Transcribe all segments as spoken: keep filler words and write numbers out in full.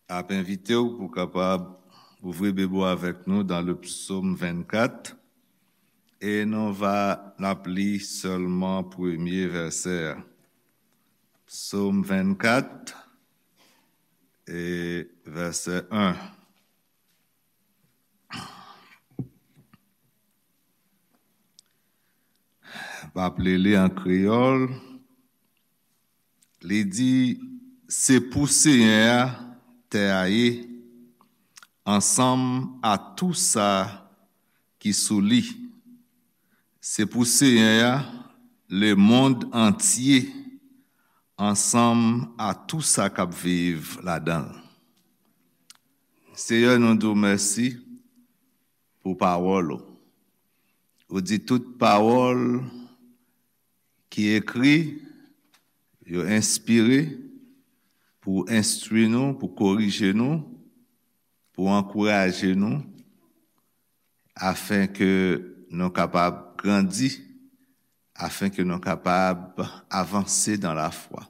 Ap envite w pou kapab ouvri Bib ou avèk nou dans le psaume vingt-quatre. E nou va n ap li sèlman premye vèsè a. Psaume vingt-quatre e vèsè un. M ap li li an kreyòl. Li di, se pou Senyè a tè a ye, ansanm a tou sa ki sou li. Se pou Senyè a lemonn antye, ansanm a tou sa k ap viv ladan l. Senyè, nou di w mèsi pou pawòl ou. Ou di tout pawòl ki ekri, yo enspire pou enstwi nou, pou korije nou, pou ankouraje nou, afenke nou kapab grandi, afenke nou kapab avanse dans la foi.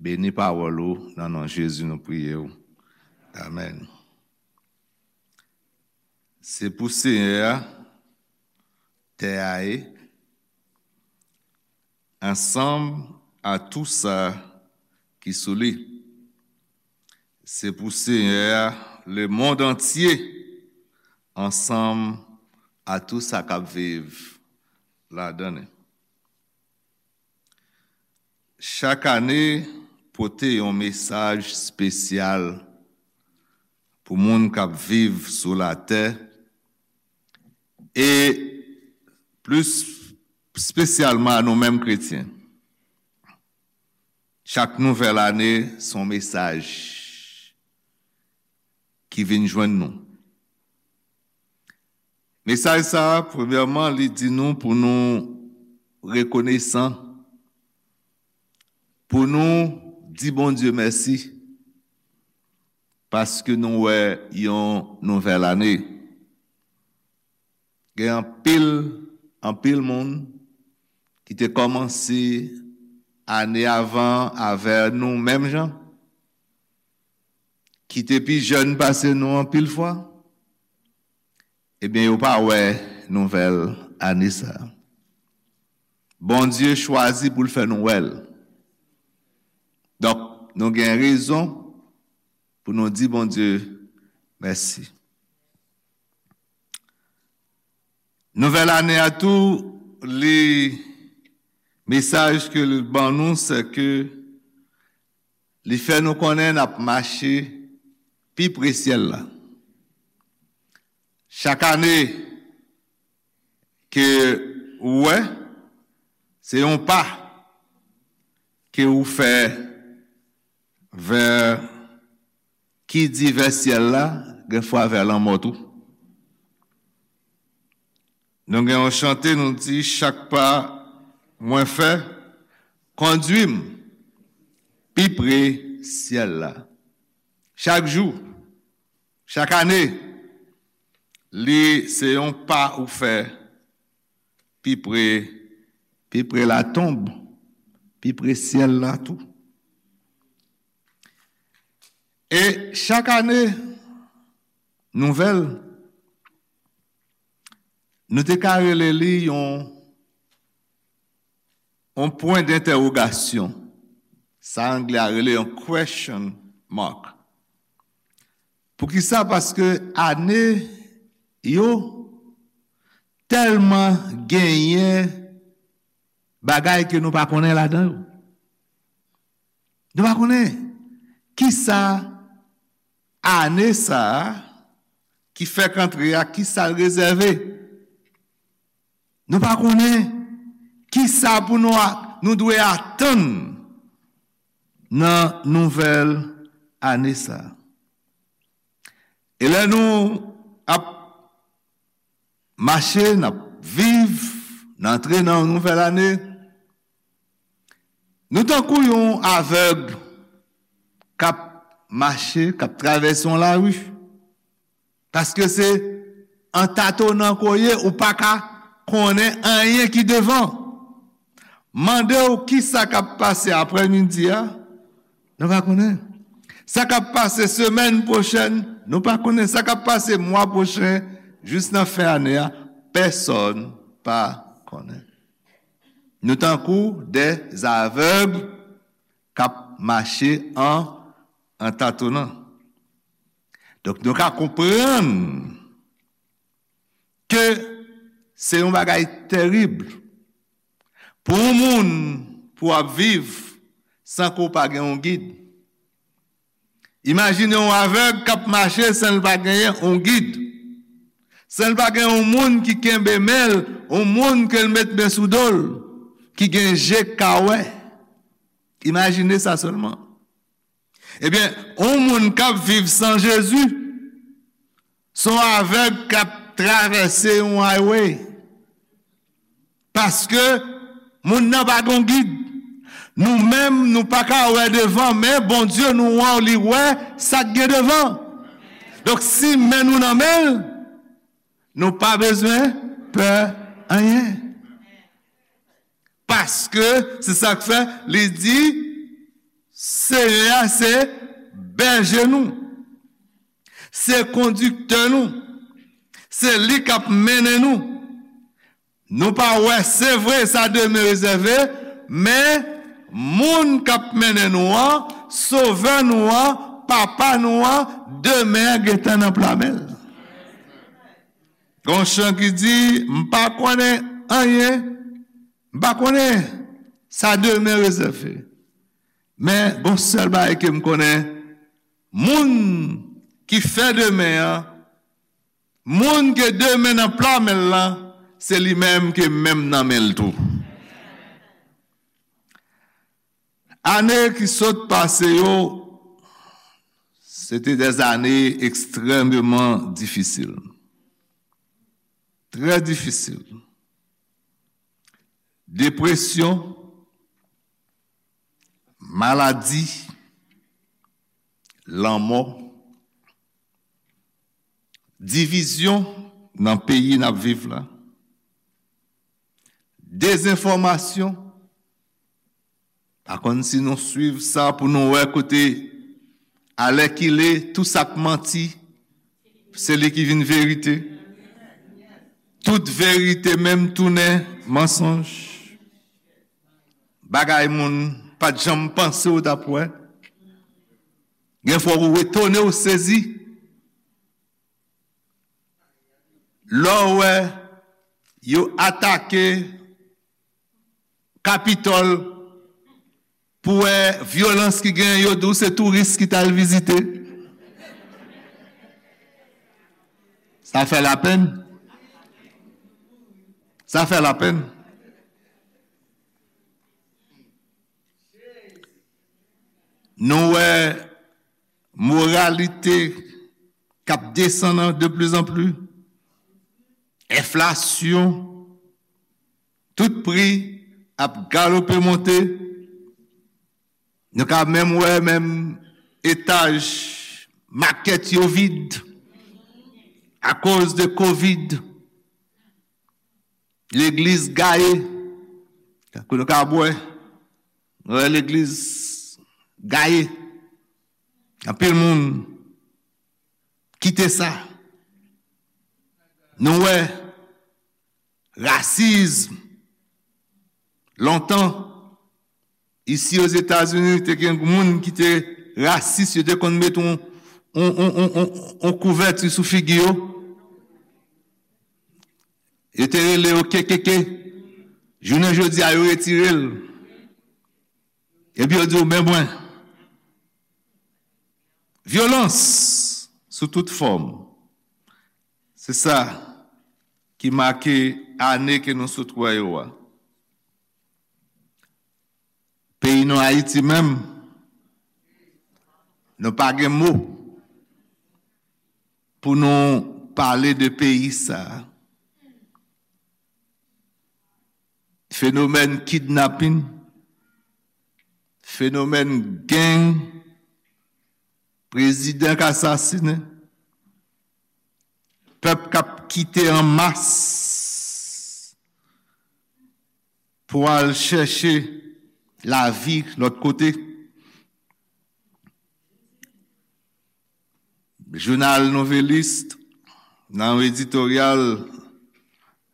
Beni pawòl ou, nan non Jezi nou priye w. Amèn. Se pou Senyè a tè a ye, ansanm a tou sa ki sou li. Se pou Senyè a lemonn antye, ansanm a tou sa k ap viv ladan li. Chak ane pote yon mesaj espesyal pou moun k ap viv sou latè, e plis espesyalman a nou menm kretyen. Chak nouvèl ane, se yon mesaj ki vin jwenn nou. Mesaj sa a, premyèman, li di nou pou nou rekonesan, pou nou di Bondye mèsi, paske nou wè yon nouvèl ane. Gen anpil, anpil moun ki te kòmanse ane avan avè nou menm jan, ki te pi jèn pase nou anpil fwa, ebyen, yo pa wè nouvèl ane sa a. Bondye chwazi pou l fè nou wè l. Donk, nou gen rezon pou nou di Bondye mèsi. Nouvèl ane a tou, li, mesaj ke li ban nou, se ke li fè nou konnen n ap mache pi pre syèl la. Chak ane ke ou wè, se yon pa ke ou fè vè, ki di vè syèl la, gen fwa vè lanmò tou. Nou gen yon chante, nou di, chak pa mwen fè, kondwi m pi pre syèl la. Chak jou, chak ane, li se yon pa ou fè pi pre, pi pre latonb, pi pre syèl la tou. E chak ane, nouvèl, nou te ka rele li yon, yon pwen dentèwogasyon. Sa anglè a rele yon question mark. Poukisa? Paske ane yo tèlman genyen bagay ke nou pa konnen ladan yo. Nou pa konnen kisa ane sa a ki fèk antre a, kisa l rezève. Nou pa konnen kisa pou nou a-, nou dwe atann nan nouvèl ane sa a. E lè nou ap mache, n ap viv, n antre nan yon nouvèl ane, nou tankou yon avèg k ap mache, k ap travèse yon lari. Paske se an tatonan ke w ye, ou pa ka konnen anyen ki devan. Mande w kisa k ap pase aprèmidi a, nou pa konnen. Sa k ap pase semèn pwochèn, nou pa konnen. Sa k ap pase mwa pwochen, jis nan fen ane a, pèsonn pa konnen. Nou tankou de avèg k ap mache an, an tatonan. Donk, nou ka konprann ke se yon bagay terib pou yon moun pou w ap viv san ke w pa gen yon gid. Imajine yon avèg k ap mache san l pa genyen yon gid, san l pa gen yon moun ki kenbe men l, yon moun ke l met men sou do l, ki gen je k ka wè. Imajine sa sèlman. Ebyen, yon moun k ap viv san Jezi, se yon avèg k ap travèse yon highway. Paske moun nan pa gen gid. Nou menm, nou pa ka wè devan, men Bondye nou an, li wè sa k gen devan. Donk, si men nou nan men l, nou pa bezwen pè anyen. Paske se sa k fè li di, Senyè a se bèje nou, se kondiktè nou, se li k ap mennen nou. Nou pa wè, se vre, sa demen rezève, men moun k ap mennen nou an, Sovè nou an, Papa nou an, demen an gentan nan pla men l. Gon chan ki di, "M pa konnen anyen, m pa konnen sa demen rezève." Men, gon sèl bagay ke m konnen, moun ki fè demen an, moun ke demen nan pla men l lan, se li menm ke menm nan men l tou. Ane ki sot pase yo, se te des années extrêmement difficiles. Trè difisil. Depresyon, maladi, lanmò, divizyon nan peyi n ap viv la, dezenfòmasyon, pa konn si nou swiv sa pou nou wè kote, alèkile, tou sa k manti, se li ki vin verite. Tout verite menm tounen mansonj. Bagay moun pa t janm panse w t ap wè. Gen fwa ou etone, ou sezi. Lè w wè yo atake Kapitòl, pou wè vyolans ki genyen, yo di w se touris ki t al vizite. Sa fè lapenn. Sa fè lapenn. Nou wè moralite k ap desann de plus en plus, enflasyon, tout pri ap galope monte. Nou ka menm wè menm etaj makèt yo vid akoz de kovid. Legliz gaye. Tankou nou ka wè, nou wè legliz gaye. Anpil moun kite sa. Nou wè rasism. Lontan, isi Ozetazini, te gen moun ki te rasis, yo te konn met yon, yon, yon, yon, yon, yon kouvèti sou figi yo. Yo te rele yo K K K. Jounen jodi a, yo retire l. Epi yo di w, "Men mwen." Vyolans sou tout fòm. Se sa ki make ane ke nou sot wè yo a. Peyi nou Ayiti menm, nou pa gen mo pou nou pale de peyi sa a. Fenomèn kidnapin, fenomèn gang, prezidan k asasinen, pèp k ap kite an mas pou al chèche lavi lòt kote. Jounal Nouvelliste, nan yon editoryal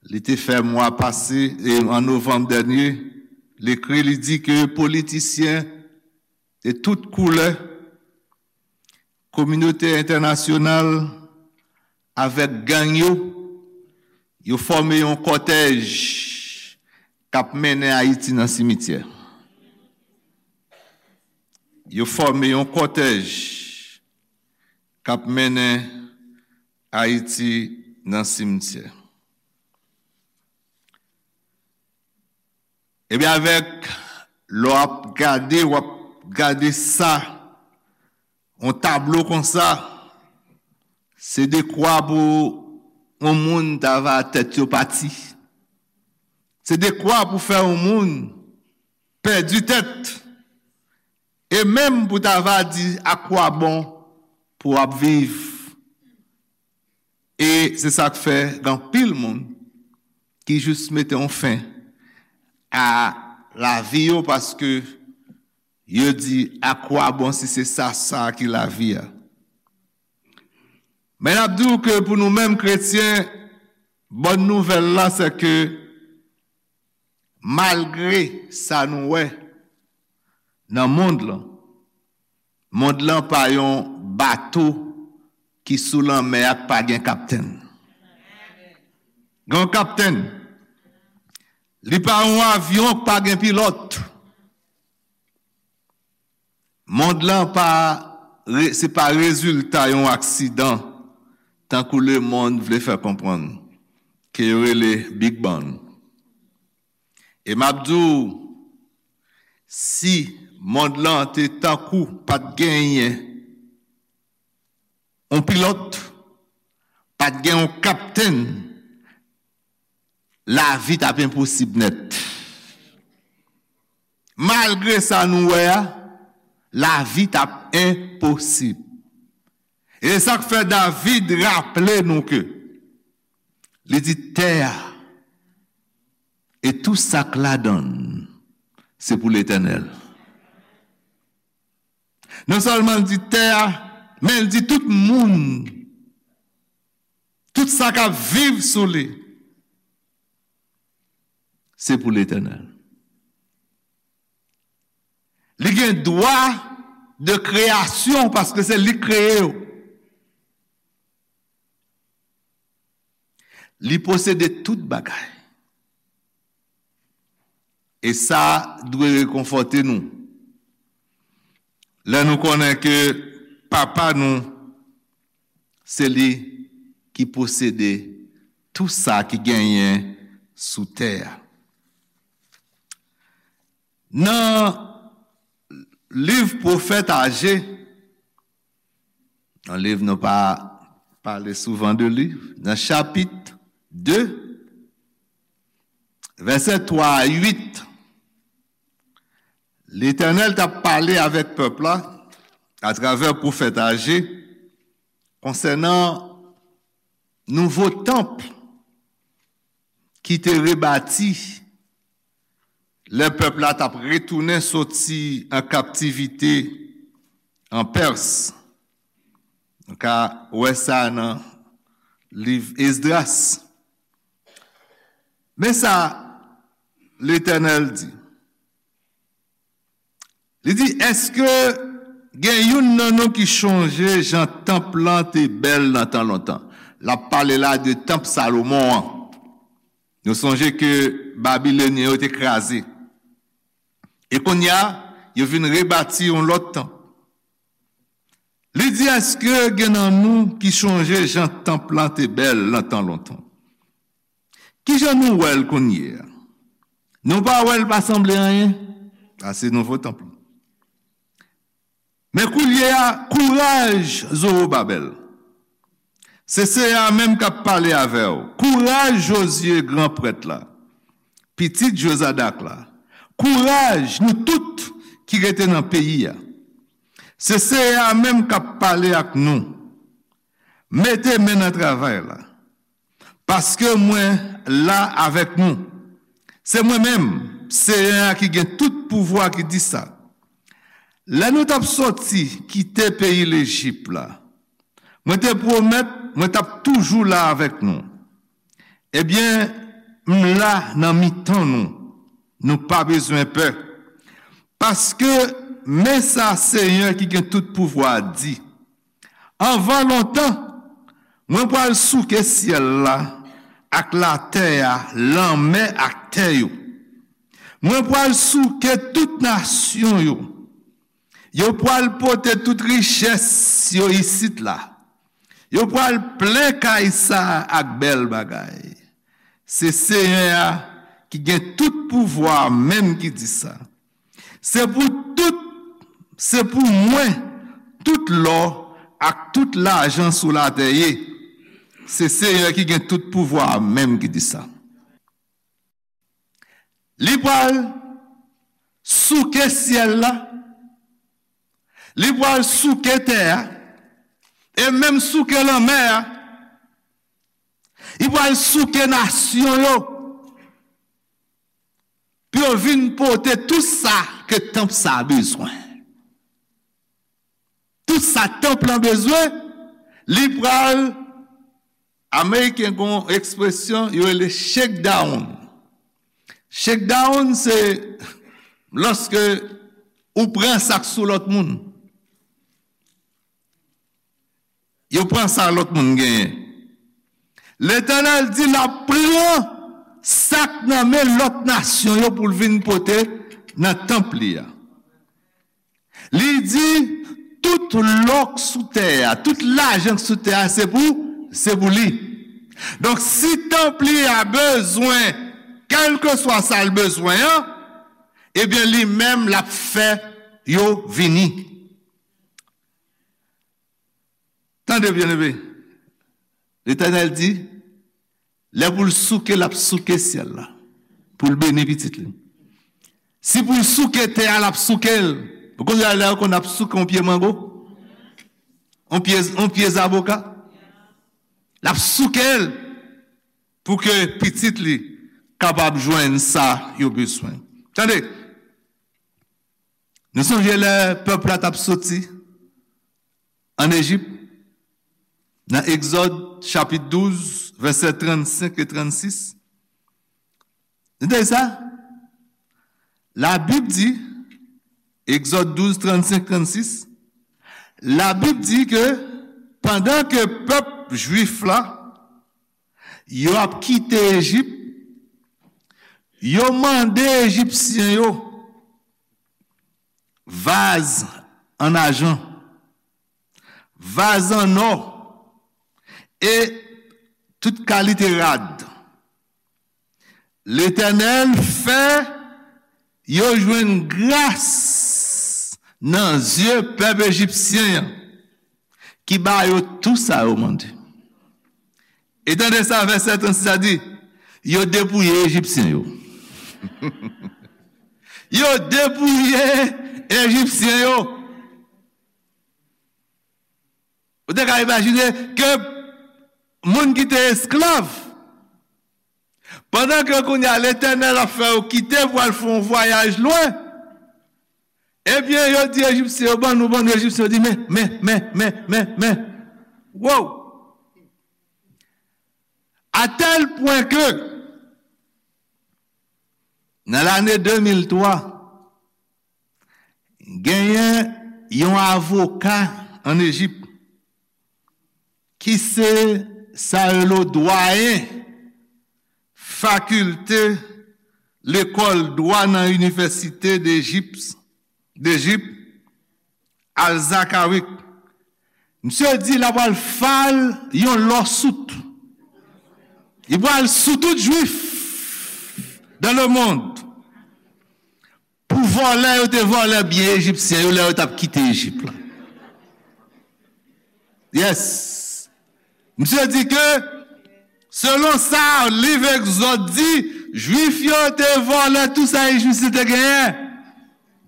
li te fè mwa pase, e an novanm dènye, li ekri, li di ke politisyen de tout koulè, kominote entènasyonal avèk gang yo, yo fòme yon kòtèj k ap mennen Ayiti nan simityè. Yo fòme yon kòtèj k ap mennen Ayiti nan simityè. Ebyen, avèk, lè w ap gade, w ap gade sa, yon tablo konsa, se dekwa pou yon moun ta va tèt yo pati. Se dekwa pou fè yon moun pèdi tèt. E menm pou ta va di, akwabon pou w ap viv. E se sa k fè gen anpil moun ki jis mete yon fen a lavi yo, paske yo di, akwabon si se sa, sa ki lavi a? Men n ap di w ke pou nou menm kretyen, bòn nouvèl la, se ke malgre sa nou wè nan mond lan, mond lan pa yon bato ki sou lanmè a k pa gen kaptenn. Gen yon kaptenn. Li pa yon avyon k pa gen pilòt. Mond lan pa, re- se pa rezilta yon aksidan, tankou lemonn vle fè konprann, ke yo rele Big Bang. E m ap di w, si mond lan te tankou pa t genyen yon pilòt, pa t gen yon kaptenn, lavi t ap enposib nèt. Malgre sa nou wè a, lavi t ap enposib. E se sa k fè David raple nou ke li di, tè a e tou sa k ladan l, se pou Letènèl. Non sèlman l di tè a, men l di tout moun, tout sa k ap viv sou li, se pou Letènèl. Li gen dwa de kreyasyon paske se li k kreye yo. Li posede tout bagay. E sa dwe rekonfòte nou. Lè nou konnen ke Papa nou, se li ki posede tou sa ki genyen sou tè a. Nan liv pwofèt Aje, yon liv nou pa pale souvan de li, nan chapit de, vèsè twa a uit, Letènèl t ap pale avèk pèp la atravè pwofèt Aje konsènan nouvo tanp ki te rebati lè pèp la t ap retounen soti an kaptivite an Pès. Nou ka wè sa nan liv Esdras. Men sa Letènèl di. Li di, èske gen youn nan nou ki chonje jan tanp lan te bèl nan tan lontan? L ap pale la de tanp Salomon an. Nou sonje ke Babilonyen yo te kraze. E kounye a, yo vin rebati yon lòt tanp. Li di, èske gen nan nou ki chonje jan tanp lan te bèl nan tan lontan? Kijan nou wè l kounye a? Nou pa wè l pa sanble anyen? Sa se nouvo tanp lan. Men kounye a, kouraj, Zowobabèl. Se Seyè a menm k ap pale avè w. Kouraj, Jozye, gran prèt la, pitit Jozadak la. Kouraj, nou tout ki rete nan peyi a. Se Seyè a menm k ap pale ak nou. Mete men nan travay la. Paske mwen la avèk nou. Se mwen menm, Seyè a ki gen tout pouvwa, ki di sa. Lè nou t ap soti kite peyi Lejip la, Mwen te pwomèt mwen t ap toujou la avèk nou. Ebyen, m la nan mitan nou. Nou pa bezwen pè. Paske, men sa Senyè ki gen tout pouvwa a di, anvan lontan, mwen pral souke syèl la ak latè a, lanmè ak tè yo. Mwen pral souke tout nasyon yo. Yo pral pote tout richès yo isit la. Yo pral plen kay sa a ak bèl bagay. Se Senyè a ki gen tout pouvwa a menm ki di sa. Se pou tout, se pou mwen, tout lò ak tout lajan sou latè ye. Se Senyè ki gen tout pouvwa a menm ki di sa. Li pral souke syèl la, li pral souke tè a, e menm souke lanmè a. Li pral souke nasyon yo pou yo vin pote tout sa ke tanp sa a bezwen. Tout sa tanp lan bezwen, li pral, Ameriken gen yon ekspresyon yo rele shakedown. Shakedown se lòske ou pran sa k sou lòt moun. Yo pran sa lòt moun genyen. Letènèl di l ap pran sa k nan men lòt nasyon yo pou l vin pote nan tanp li a. Li di, tout lò k sou tè a, tout lajan k sou tè a, se pou, se pou li. Donk, si tanp li a bezwen, kèlkeswa sa l bezwen an, ebyen, li menm l ap fè yo vini. Tande byen, ebe. Letènèl di, lè pou l souke, l ap souke syèl la, pou l beni pitit li. Si pou l souke tè a, l ap souke l. Ou konn lè yo konn ap souke yon pye mango? Yon pye, yon pye zaboka? L ap souke l pou ke pitit li kapab jwenn sa yo bezwen. Tande, nou sonje lè pèp la t ap soti ann Ejip, nan Egzòd, chapit douz, vèsè trannsenk e trannsis. Tande sa? Labib di, Egzòd douz, trannsenk, trannsis, Labib di ke pandan ke pèp jwif la, yo ap kite Ejip, yo mande Ejipsyen yo vaz an ajan, vaz an nò e tout kalite rad. Letènèl fè yo jwenn gras nan zye pèp ejipsyen an, ki ba yo tou sa yo mande. E tande sa vèsè trannsis la di, yo depouye Ejipsyen yo. Yo depouye Ejipsyen yo. Ou te ka imajine ke moun ki te esklav, pandan ke kounye a Letènèl ap fè yo kite pou al fè yon vwayaj lwen, ebyen, yo di Ejipsyen yo, ban nou, ban nou, Ejipsyen yo di, men, men, men, men, men, men. Wow! A tèl pwen ke, nan lane de mil twa, genyen yon avoka ann Ejip ki se sa yo rele dwayen fakilte lekòl dwa nan Inivèsite Dejip, Dejip, Al-Zakawic. Misye di l ap al file yon lawsuit. Li pral sou tout jwif dans le monde pou vòlè yo te vòlè byen ejipsyen yo lè yo t ap kite Ejip la. Yes. Misye di ke, selon sa liv Egzòd di, jwif yo te vòlè tou sa ejipsyen te genyen.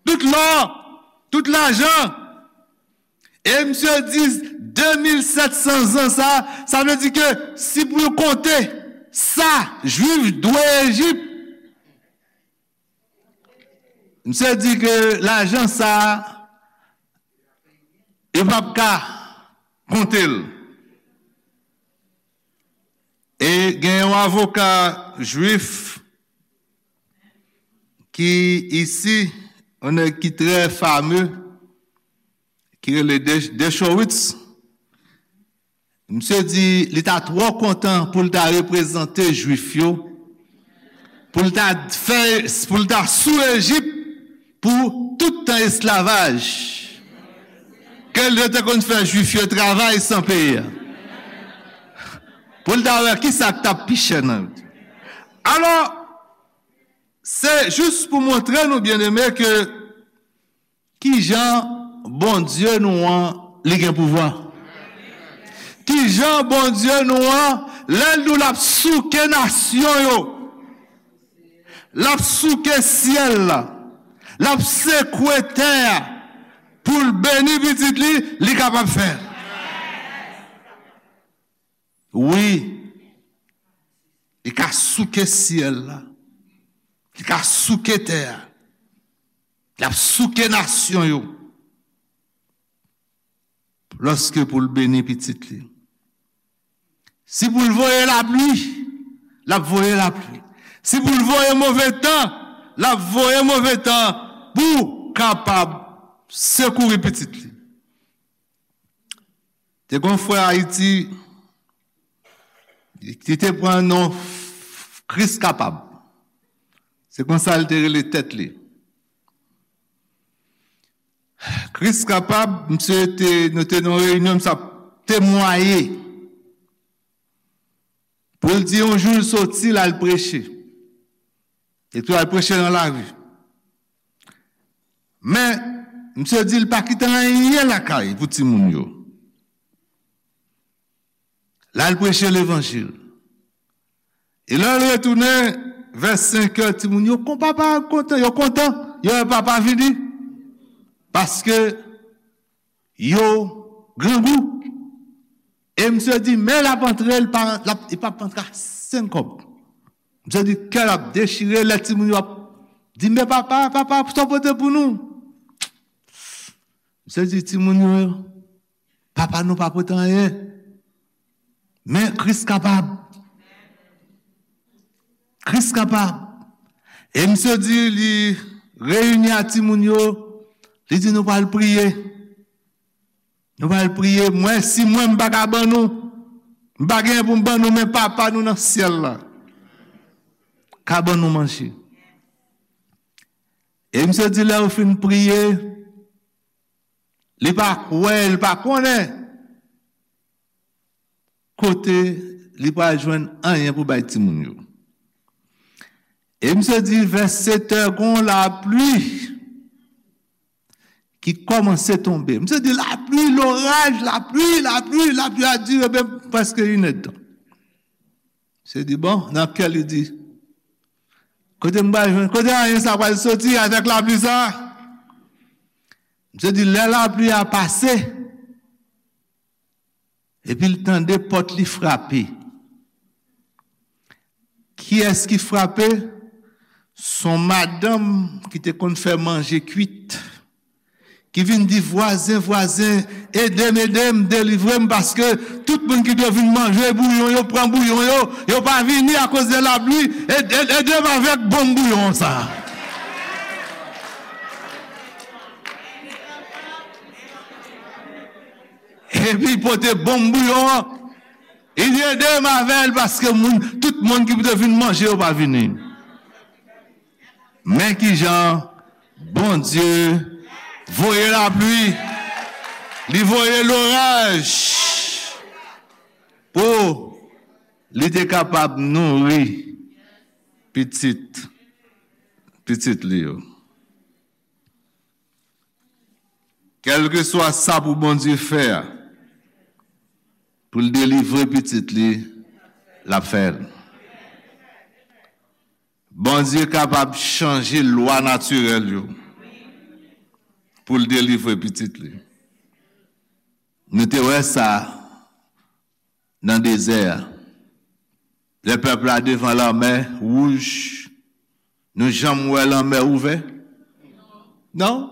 Tout lò, tout lajan. E misye di de mil sèt san zan sa, sa vle di ke si pou yo konte sa jwif dwe Ejip, misye di ke lajan sa, yo p ap ka konte l. Gen yon avoka jwif ki isi, yon nèg ki trè fame, ki rele De- Dershowitz. Misye di li ta twò kontan pou l ta reprezante jwif yo, pou l ta fè, pou l ta sou Ejip pou tout tan esklavaj ke yo te konn fè jwif yo travay san peye. Pou l ta wè kisa k t ap pi chè nan yo. Alò, se jis pou montre nou, byeneme, ke kijan Bondye nou an, li gen pouvwa. Kijan Bondye nou an, lè l di w l ap souke nasyon yo, l ap souke syèl la, l ap sekwe tè a pou l beni pitit li, li kapab fè l. Wi, li ka souke syèl la, li ka souke tè a, l ap souke nasyon yo. Lòske pou l beni pitit li. Si pou l voye lapli, l ap voye lapli. Si pou l voye move tan, l ap voye move tan pou kapab sekouri pitit li. Te gen yon frè Ayiti ki te pran non Kris Kapab. Se konsa l te rele tèt li. Kris Kapab, misye te, nou te nan yon reyinyon, misye ap temwaye. Pou l di yon jou l soti, l al preche. Epi l al preche nan lari. Men, misye di l pa kite anyen lakay pou timoun yo. L al preche levanjil. E lè l retounen, vè senkè, timoun yo kon papa kontan, yo kontan, yo wè papa vini. Paske yo grangou. E misye di, men l ap antre, l pa, l ap, li p ap antre a senk kòb. Misye di, kè l ap dechire, lè timoun yo ap di, men papa, papa, sa w pote pou nou? Misye di, timoun yo, papa nou pa pote anyen. Men Kris kapab. Kris kapab. E misye di, li reyini a timoun yo, li di, nou pral priye. Nou pral priye. Mwen, si mwen, m pa ka ban nou, m pa genyen pou m ban nou, men Papa nou nan syèl la ka ban nou manje. E misye di, lè yo fin priye, li pa kwè, li pa konnen kote li pral jwenn anyen pou bay timoun yo. E misye di, vè sèt è, gon lapli ki kòmanse tonbe. Misye di, lapli, loraj, lapli, lapli, lapli a dire ben prèske inèdtan. Misye di, bon, nan kè li di, kote m pral jwenn, kote anyen sa pral soti avèk lapli sa? Misye di, lè lapli a pase, epi l tande pòt li frape. Kiyès ki frape? S on madanm ki te konn fè manje kwit, ki vin di, vwazen, vwazen, ede m, ede m, delivre m, paske tout moun ki dwe vin manje bouyon yo, pran bouyon yo, yo pa vini akoz de lapli, ede, ede m avèk bonm bouyon sa. Epi pote bonm bouyon an, li di, ede m avè l paske moun, tout moun ki pou te vin manje yo pa vini. Men kijan Bondye voye lapli, li voye loraj pou li te kapab nouri pitit, pitit li yo. Kèlkeswa sa pou Bondye fè a, pou l delivre pitit li, l ap fè l. Bondye kapab chanje lwa natirèl yo pou l delivre pitit li. Nou te wè sa nan dezè a. Lè pèp la devan lanmè wouj, nou janm wè lanmè ouvè? Non.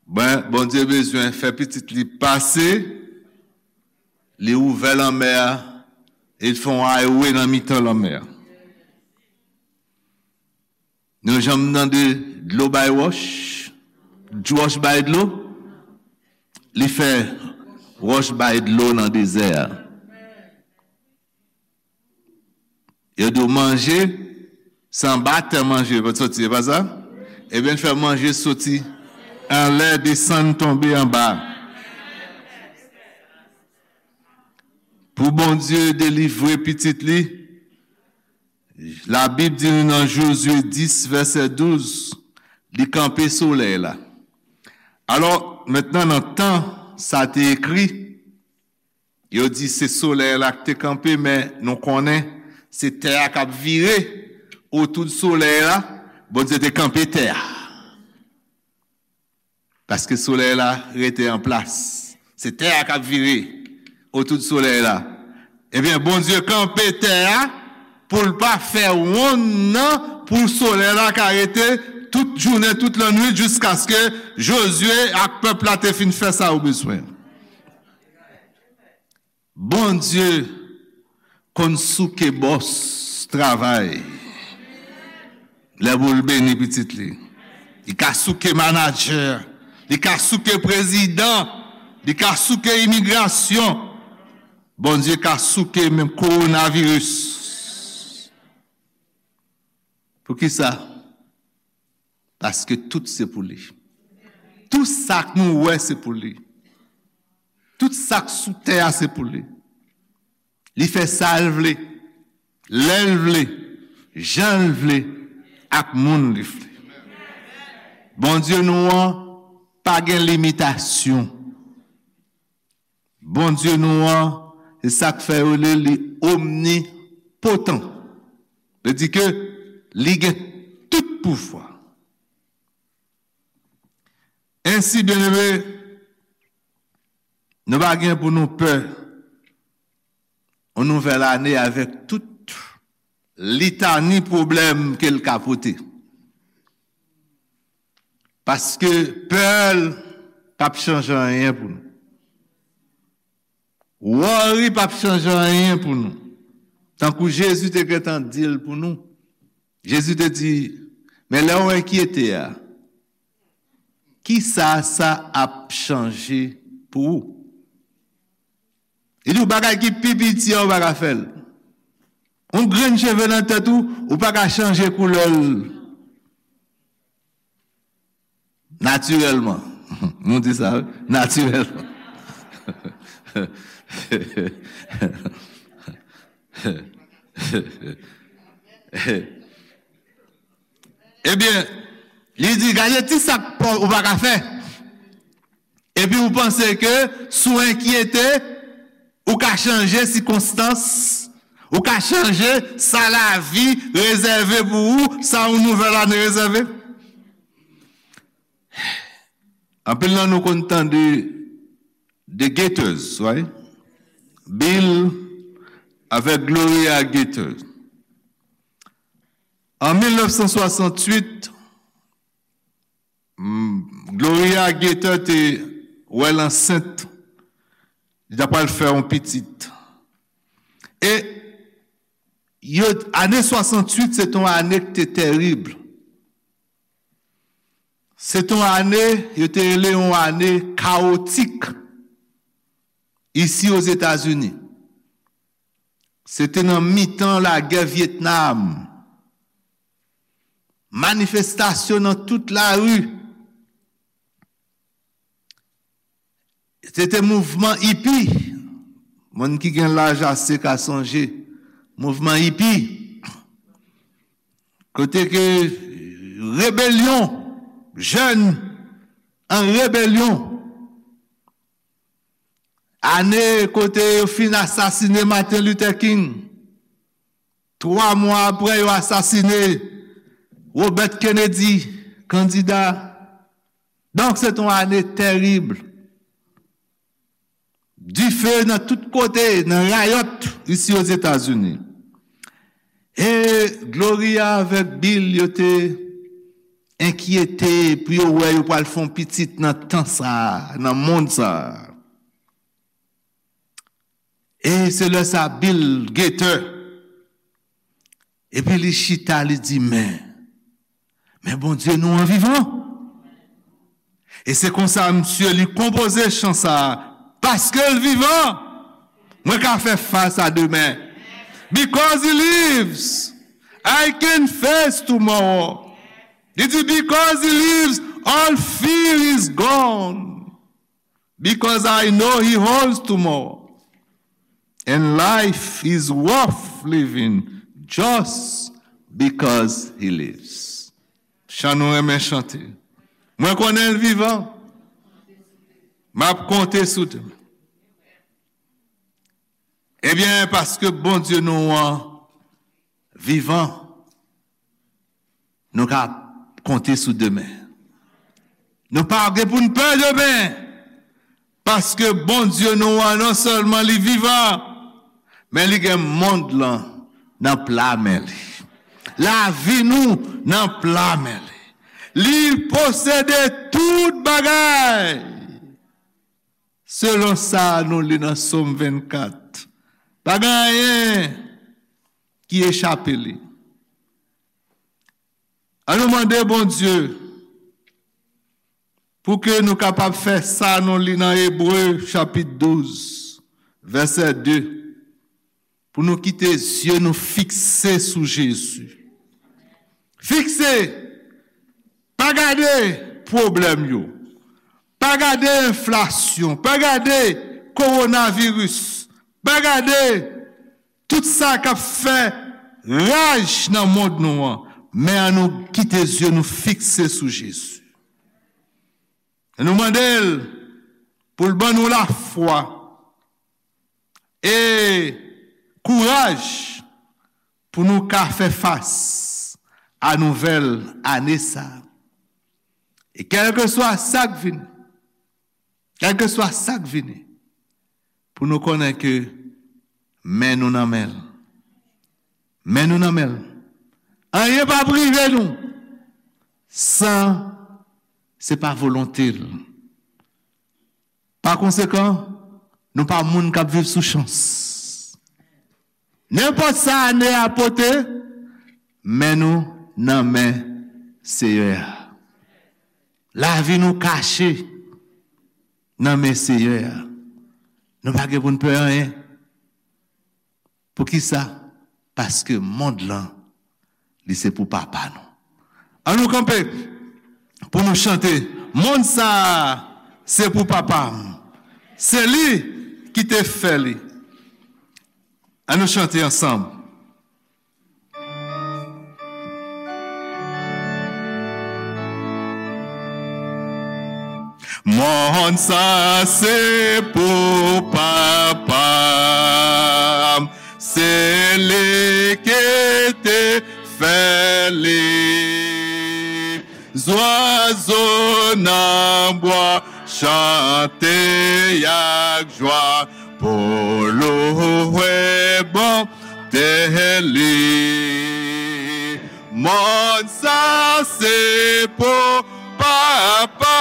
Ben, Bondye bezwen fè pitit li pase, li ouvè lanmè a, E l fè yon highway nan mitan lanmè a. Nou janm tande dlo bay wòch, wòch bay dlo, li fè wòch bay dlo nan dezè a. Yo di w manje, se anba tè manje pou soti, se pa sa? Ebyen, l fè manje soti anlè, desann, tonbe anba. Pou Bondye delivre pitit li, Labib di nou nan Jozye dis, vèsè douz, li kanpe solèy la. Alò, mentnan, nan tan sa te ekri, yo di se solèy la k te kanpe, men nou konnen se tè a k ap vire otou de solèy la. Bondye te kanpe tè a. Paske solèy la rete an plas. Se tè a k ap vire otou de solèy la. Ebyen, Bondye kanpe tè a pou l pa fè wonn nan, pou solèy la ka rete tout jounen, tout lannwit, jiskaske Jozye ak pèp la te fin fè sa yo bezwen. Bondye konn souke bòs travay lè pou l beni pitit li. Li ka souke manadjè, li ka souke prezidan, li ka souke imigrasyon. Bondye ka souke menm kowonaviris. Poukisa? Paske tout se pou li. Tout sa k nou wè se pou li. Tout sa k sou tè a se pou li. Li fè sa l vle, lè l vle, jan l vle, ak moun li vle. Bondye nou an pa gen limitasyon. Bondye nou an, se sa k fè yo rele li omnipotan. Vle di ke li gen tout pouvwa. Ensi, byeneme, nou pa gen pou nou pè yon nouvèl ane avèk tout litani pwoblèm ke l ka pote. Paske pè l p ap chanje anyen pou nou. Worry p ap chanje anyen pou nou. Tankou Jezi te gentan di l pou nou. Jezi te di, men lè w enkyete a, kisa sa ap chanje pou ou? Li di w bagay ki pi piti a, ou pa ka fè l. Yon grenn cheve nan tèt ou, ou pa ka chanje koulè l natirèlman. Nou di sa, wi, natirèlman. Ebyen, li di, gade ti sa k pa, ou pa ka fè. Epi ou panse ke si w enkyete, ou ka chanje sikonstans, ou ka chanje sa lavi rezève pou ou, sa yon nouvèl ane rezève. Anpil nan nou konn tande The Gaithers, right? Bill avèk Gloria Gaither. An mil nèf san swasanntuit, mm, Gloria Gaither te wè l ansent, li ta pral fè yon pitit. E yo, ane swasanntuit, se te yon ane ki te terib. Se te yon ane, yo te rele yon ane kawotik isi Ozetazini. Se te nan mitan lagè Vyetnam. Manifestasyon nan tout lari. Se te mouvman ipi. Moun ki gen laj ase ka sonje mouvman ipi. Kote ke rebelyon, jèn an rebelyon. Ane kote yo fin asasine Martin Luther King. Twa mwa apre, yo asasine Robert Kennedy, kandida. Donk, se te yon ane terib. Dife nan tout kote, nan rayòt isi Ozetazini. E Gloria avèk Bill, yo te enkyete pou yo wè yo pral fè yon pitit nan tan sa a, nan mond sa a. E se lè sa Bill Gaither, epi li chita, li di, men, men Bondye nou an vivan. E se konsa, misye, li konpoze chan sa a, paske l vivan, mwen ka fè fas a demen. Because he lives, I can face tomorrow. Li di, because he lives, all fear is gone. Because I know he holds tomorrow. And life is worth living just because he lives. Chan nou renmen chante. Mwen konnen l vivan. M ap konte sou demen. Ebyen, paske Bondye nou an vivan, nou ka konte sou demen. Nou pa gen pou n pè demen. Paske Bondye nou an, non sèlman li vivan, men li gen mond lan nan pla men li. Lavi nou nan pla men li. Li posede tout bagay. Selon sa nou li nan Sòm vennkat, pa gen anyen ki echape li. An nou mande Bondye pou ke nou kapab fè sa nou li nan Ebre chapit douz, vèsè de, pou nou kite zye nou fikse sou Jezi. Fikse! Pa gade pwoblèm yo. Pa gade enflasyon. Pa gade kowonaviris. Pa gade tout sa k ap fè raj nan mond nou an. Men an nou kite zye nou fikse sou Jezi. E nou mande l pou l ban nou lafwa e kouraj pou nou ka fè fas a nouvèl ane sa a. E kèlkeswa sa k vini, kèlkeswa sa k vini, pou nou konnen ke men nou nan men l. Men nou nan men l. Anyen p ap rive nou san se pa volonte l. Pa konsekan, nou pa moun k ap viv sou chans. Nenpòt sa ane a pote, men nou nan men Seyè a. Lavi nou kache nan men Seyè a. Nou pa gen pou n pè anyen. Poukisa? Paske mond lan, li se pou Papa nou. An nou kanpe pou nou chante. Mond sa a, se pou Papa m. Se li ki te fè li. An nou chante ansanm. Mond sa se pou Papa m, se li ki te fè li. Zwazo nan bwa chante ak jwa pou louwe bonte li. Mond sa se pou Papa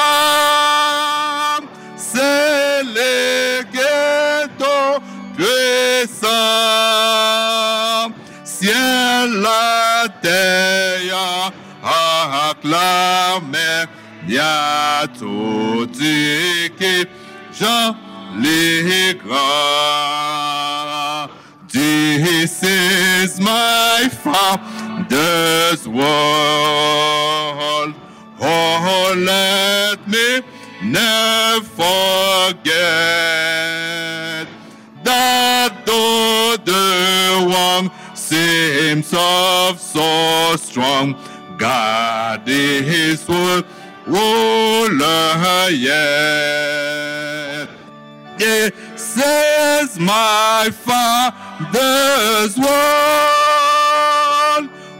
m, se li ki tou pwisan. Syèl, latè a ak lamè a, tout di ki jan li gran. This is my Father's world. Oh, let me never forget that though the world seems so, so strong, God is worth ruler yet. This is my Father's world.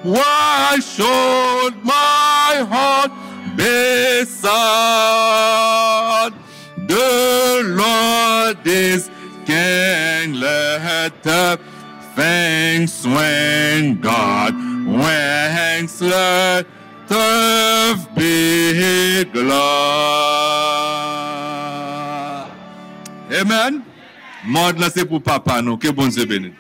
Why should my heart be sad? The Lord is King, let the things swing God wings, let earth be glad. Amen. Mòd lan se pou papa nou. Ke Bondye beni.